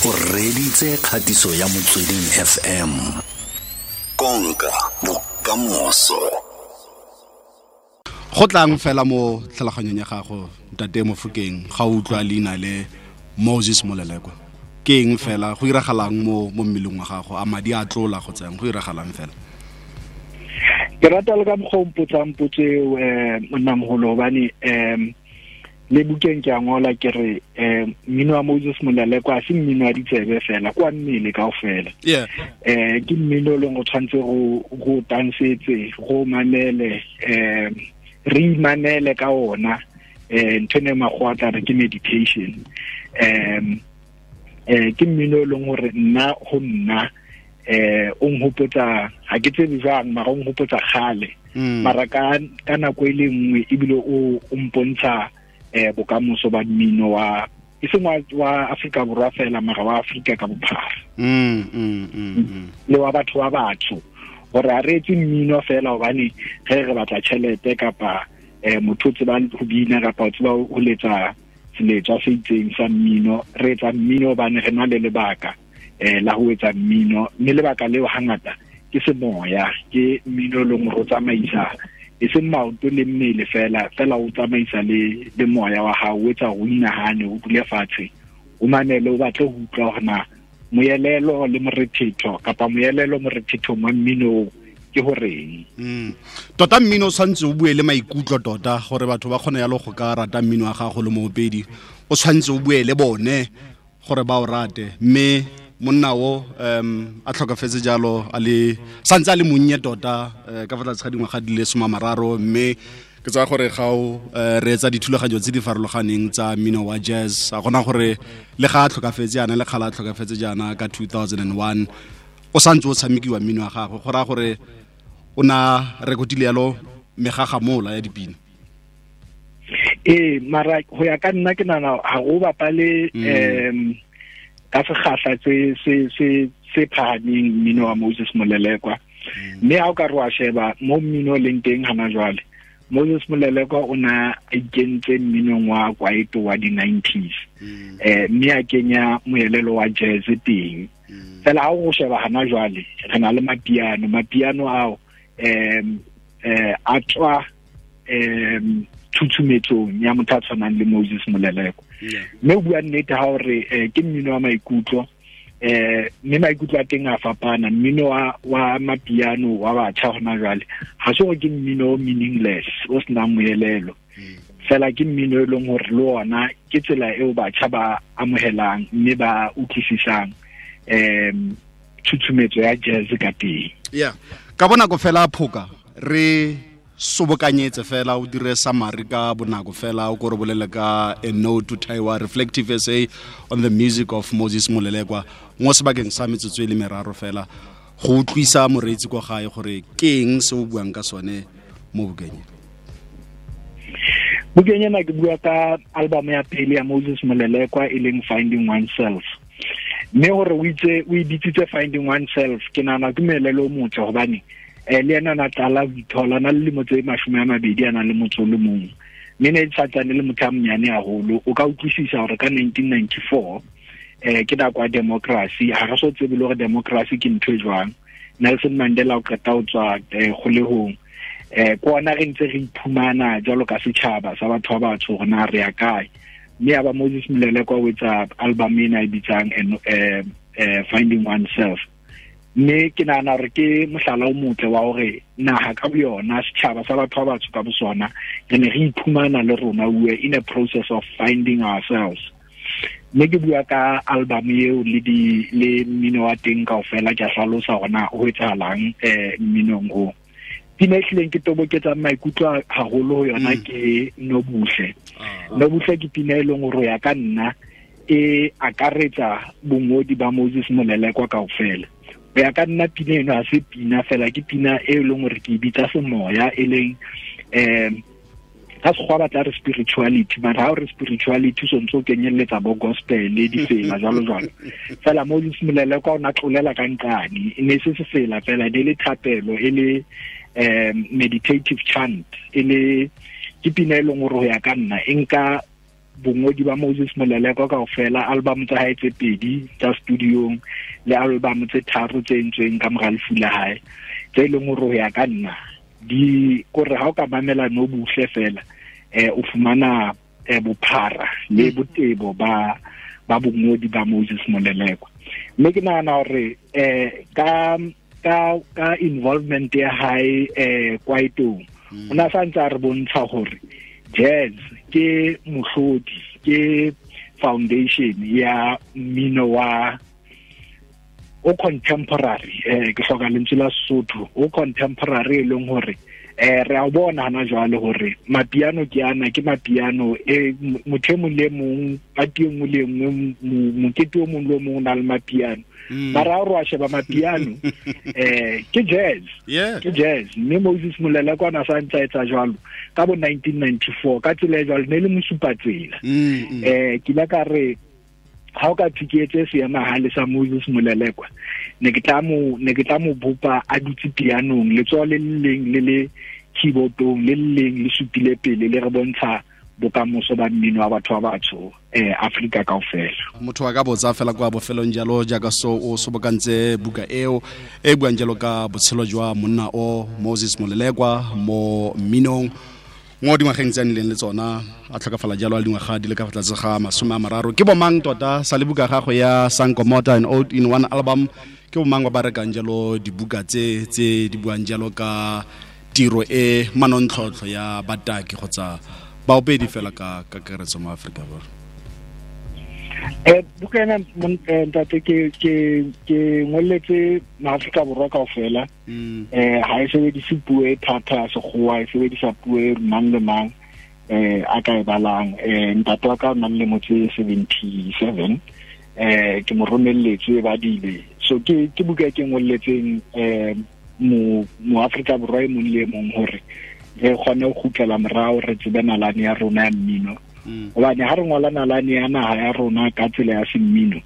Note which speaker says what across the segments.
Speaker 1: O reditse kgatiso ya Motsweding FM. Konka bokamoso.
Speaker 2: Go tlang fela mo tlhaloganyong ya gago, Ntate Mofokeng, ga o utlwa leina le Moses Molelekwa, ke eng fela go iragalang mo mmeleng wa gago? A madi a tlola go tsang, go iragalang fela?
Speaker 3: Ke rata le ka mokgwa o mpotsang potso eo, monnamogolo, hobane le bukeng ke a ngola ke re mmino wa Moses Molelekwa a se mmino wa ditsebe fela, kwa mmele kaofela. Ke mmino o leng go tshwanetse go tansetse, go mamele, re imanele ka ona. Ntho ene makgowa tla re ke meditation. Ke mmino o leng hore nna ho nna o nhopotsa, ha ke tsebe jwang, mara o nhopotsa kgale. Mara ka nako e le nngwe ebile o mpontsha bokamoso ba mmino wa e seng wa Afrika Borwa fela, mara wa Afrika ka bophara. Le wa batho ba batsho, hore a re etse mmino fela hobane ge re batla tjhelete kapa motho o tseba ho bina kapa o tseba ho letsa seletswa se itseng sa mmino. Re etsa mmino hobane re na le lebaka la ho etsa mmino, mme lebaka leo hangata ke semoya, ke mmino leng hore o tsamaisa e seng maoto le mmele fela, fela o tsamaisa le moya wa hao, o etsa o inahane, o dule fatshe, o mamele, o batle ho utlwa hore na moelelo le morethetho kapa moelelo morethethong wa mmino ke horeng.
Speaker 2: Tota mmino o tshwanetse o bue le maikutlo tota, gore batho ba kgone yalo go ka rata mmino wa gago le moopedi, o tshwanetse o bue le bone gore ba o rate. Mme monna o a tlhokafetse jalo, a le santse a le monnye tota, ka fa tlase ga dingwaga di le 30, mme ke tsaya gore ga o reetsa dithulaganyo tse di farologaneng tsa mmino wa jazz, a gona gore le ga a tlhokafetse jaana, le kgala a tlhokafetse jaana ka 2001, o santse o tshamekiwa mmino wa gagwe, go raya gore o na rekotile yalo megagamola ya dipina.
Speaker 3: Ee, mara go ya ka nna ke nana ga go bapale ka sekgahla se phahameng mmino wa Moses Molelekwa. Mme ha o ka re wa sheba mo mmino o leng teng hana jwale, Moses Molelekwa o na a ikentse mminong wa kwaito wa di-90s, mme a kenya moelelo wa jazz teng. Fela ha o sheba hana jwale, re na le mapiano ao a tswa tshutshumetsong ya motho a tshwanang le Moses Molelekwa. Mme o bua nnete ha hore ke mmino wa maikutlo, mme maikutlo a teng a fapana. Mmino wa mapiano wa batjha hona jwale ha se hore ke mmino o meaningless, o senang moelelo, fela ke mmino e leng hore le ona ke tsela eo batjha ba amohelang mme ba utlwisisang tshutshumetso ya jazz ka teng.
Speaker 2: Yeah, ka bonako fela Phoka, re sobokanyetse fela, o dire summary ka bonako fela, o ko re bolele ka a note to Taiwa, reflective essay on the music of Moses Molelekwa, mo sebakeng sa metsotso e le meraro fela, go utlwisa moreetsi kwa gae gore ke eng se o buang ka sone mo bukeng.
Speaker 3: Bukeng ena ke bua ka album ya pele ya Moses Molelekwa e leng Finding Oneself. Mme hore o itse o e bitsitse Finding Oneself, ke nahana ke moelelo o motle, hobane le ena na tlala ho ithola, na le lemo tse 20 a nang le motso o le mong, mme ne e santsane le motho a monyane haholo. O ka utlwisisa hore ka 1994 ke nako ya democracy, ha re so tsebe le hore democracy ke ntho e jwang. Nelson Mandela o qeta ho tswa kgolehong, ke ona re ntse re iphumana jwalo ka setjhaba sa batho ba batsho hore na re ya kae. Mme ya ba Moses Molelekwa o etsa album ena e bitsang Finding Oneself. Mme ke nahana hore ke mohlala o motle wa hore naha ka boyona, setjhaba sa batho ba batsho ka bosona, re ne re iphumana le rona, we were in a process of finding ourselves. Mme ke bua ka album eo le mmino wa teng kaofela, ke a hlalosa hore na ho etsahalang mminong o. Pina e hlileng ke toboketsang maikutlo haholo ho yona ke Nobuhle. Nobuhle ke pina e leng hore ya ka nna e akaretsa bongodi ba Moses Molelekwa kaofela. Ho ya ka nna pina eno ha se pina fela, ke pina e leng hore ke e bitsa semoya, e leng ka sekgowa ba tla re spirituality, mara ha o re spirituality o sontse o kenyelletsa bo gospel le difela jwalo jwalo. Fela Moses Molelekwa o na tlolela ka nqane, e ne se sefela fela, e le thapelo, e le meditative chant, e le ke pina e leng hore ho ya ka nna e nka Bongodi ba Moses Molelekwa kaofela, album tsa hae tse 2 tsa studiong le album tse 3 tse entsweng ka mora lefu la hae, tse leng hore ho ya ka nna di kore ha o ka mamela no buhle fela o fumana bophara le botebo ba bongodi ba Moses Molelekwa. Mme ke nahana hore ka involvement ya hae kwaitong, o na sa ntse a re bontsha hore jazz ke mohlodi, ke foundation ya mmino wa o contemporary, ke hloka lentswe la Sesotho, o contemporary e leng hore re a bona hana jwale hore mapiano ke ana, ke mapiano motho e mong le mong, party e nngwe le nngwe, mokete o mong le o mong o na le mapiano. Mara ha re wa sheba mapiano ke jazz, ke jazz. Mme Moses Molelekwa na sa ntse a etsa jwalo ka bo 1994 ka tsela e jwalo, ne le mosupatsela. Ke ile ka re ha o ka thuketse seemahale sa Moses Molelekwa, ne ke tla mo bopa a dutse pianong, letsoho le leng le le keyboardong, le leng le supile pele, le re bontsha bokamoso ba mmino wa batho ba batsho Afrika kaofela.
Speaker 2: Motho a ka botsa fela kwa bofelong jalo jaaka so o sobokantse buka eo e buang jalo ka botshelo jwa monna o Moses Molelekwa mo mminong mo dingwageng tse a nnileng le tsona, a tlhokafala jalo a dingwaga di le ka fa tlase ga 30. Ke bomang tota sa le buka gago ya Sankomota and Old in One Album, ke bomang ba ba rekang jalo dibuka tse di buang jalo ka tiro e manontlhotlho ya bataki kgotsa baopedi fela ka kakaretso mo Aforika Borwa?
Speaker 3: Buka ena ntate ke ngolletse maAfrika Borwa kaofela. Ha e sebedise puo e thata ya sekgowa, e sebedisa puo e mang le mang a ka e balang. Ntate wa ka o nang le motse 77, ke mo romelletse e badile. So ke buka e ke ngolletseng mo Afrika Borwa e mong le e mong hore re kgone ho kgutlela morao, re tsebe nalane ya rona ya mmino. Hobane ha re ngola nalane ya naha ya rona ka tsela ya semmino,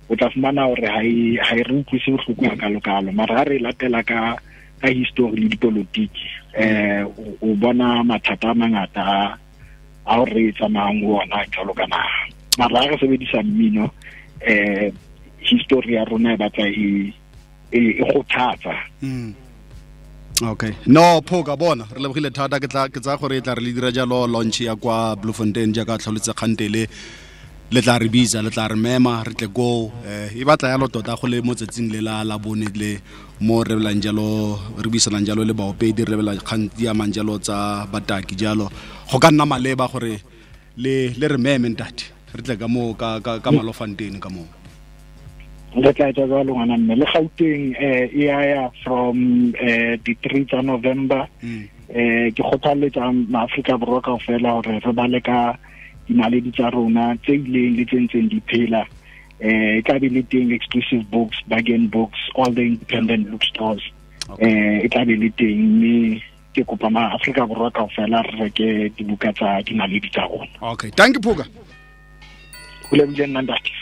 Speaker 3: o tla fumana hore ha e re utlwise bohloko hakalokalo. Mara ha re latela ka history le dipolotiki, o bona mathata a mangata a re tsamayang ho ona jwalo ka naha. Mara ha re sebedisa mmino, history ya rona e batla e kgothatsa.
Speaker 2: Okay, no phoka bona re lebogile thata. Ke tsa gore e tla re le dira jalo launch ya kwa Bloemfontein jaaka tlholotse kgantele, le tla re bitsa, le tla re mema, re tle go e batla yalo tota go le mo tsatsing le la bone le mo re belang jalo, re buisanang jalo le baopedi, re bela kgang di amang jalo tsa bataki jalo. Go ka nna maleba gore le re meme ntate, re tle ka mo ka Malofontein ka mo.
Speaker 3: Re tla etsa jwalo ngwana mme. Le Gauteng e ya from di 3 tsa November. Ke kgothaletsa maAfrika Borwa kaofela hore re bale ka dinaledi tsa rona tse ileng le tse ntseng di phela. E tla be le teng exclusive books, bargain books, all the independent bookstores. E tla be le teng, mme ke kopa maAfrika Borwa kaofela re reke dibuka tsa dinaledi tsa rona.
Speaker 2: Okay, thank you Phoka.
Speaker 3: Ho lebohile nna ntate.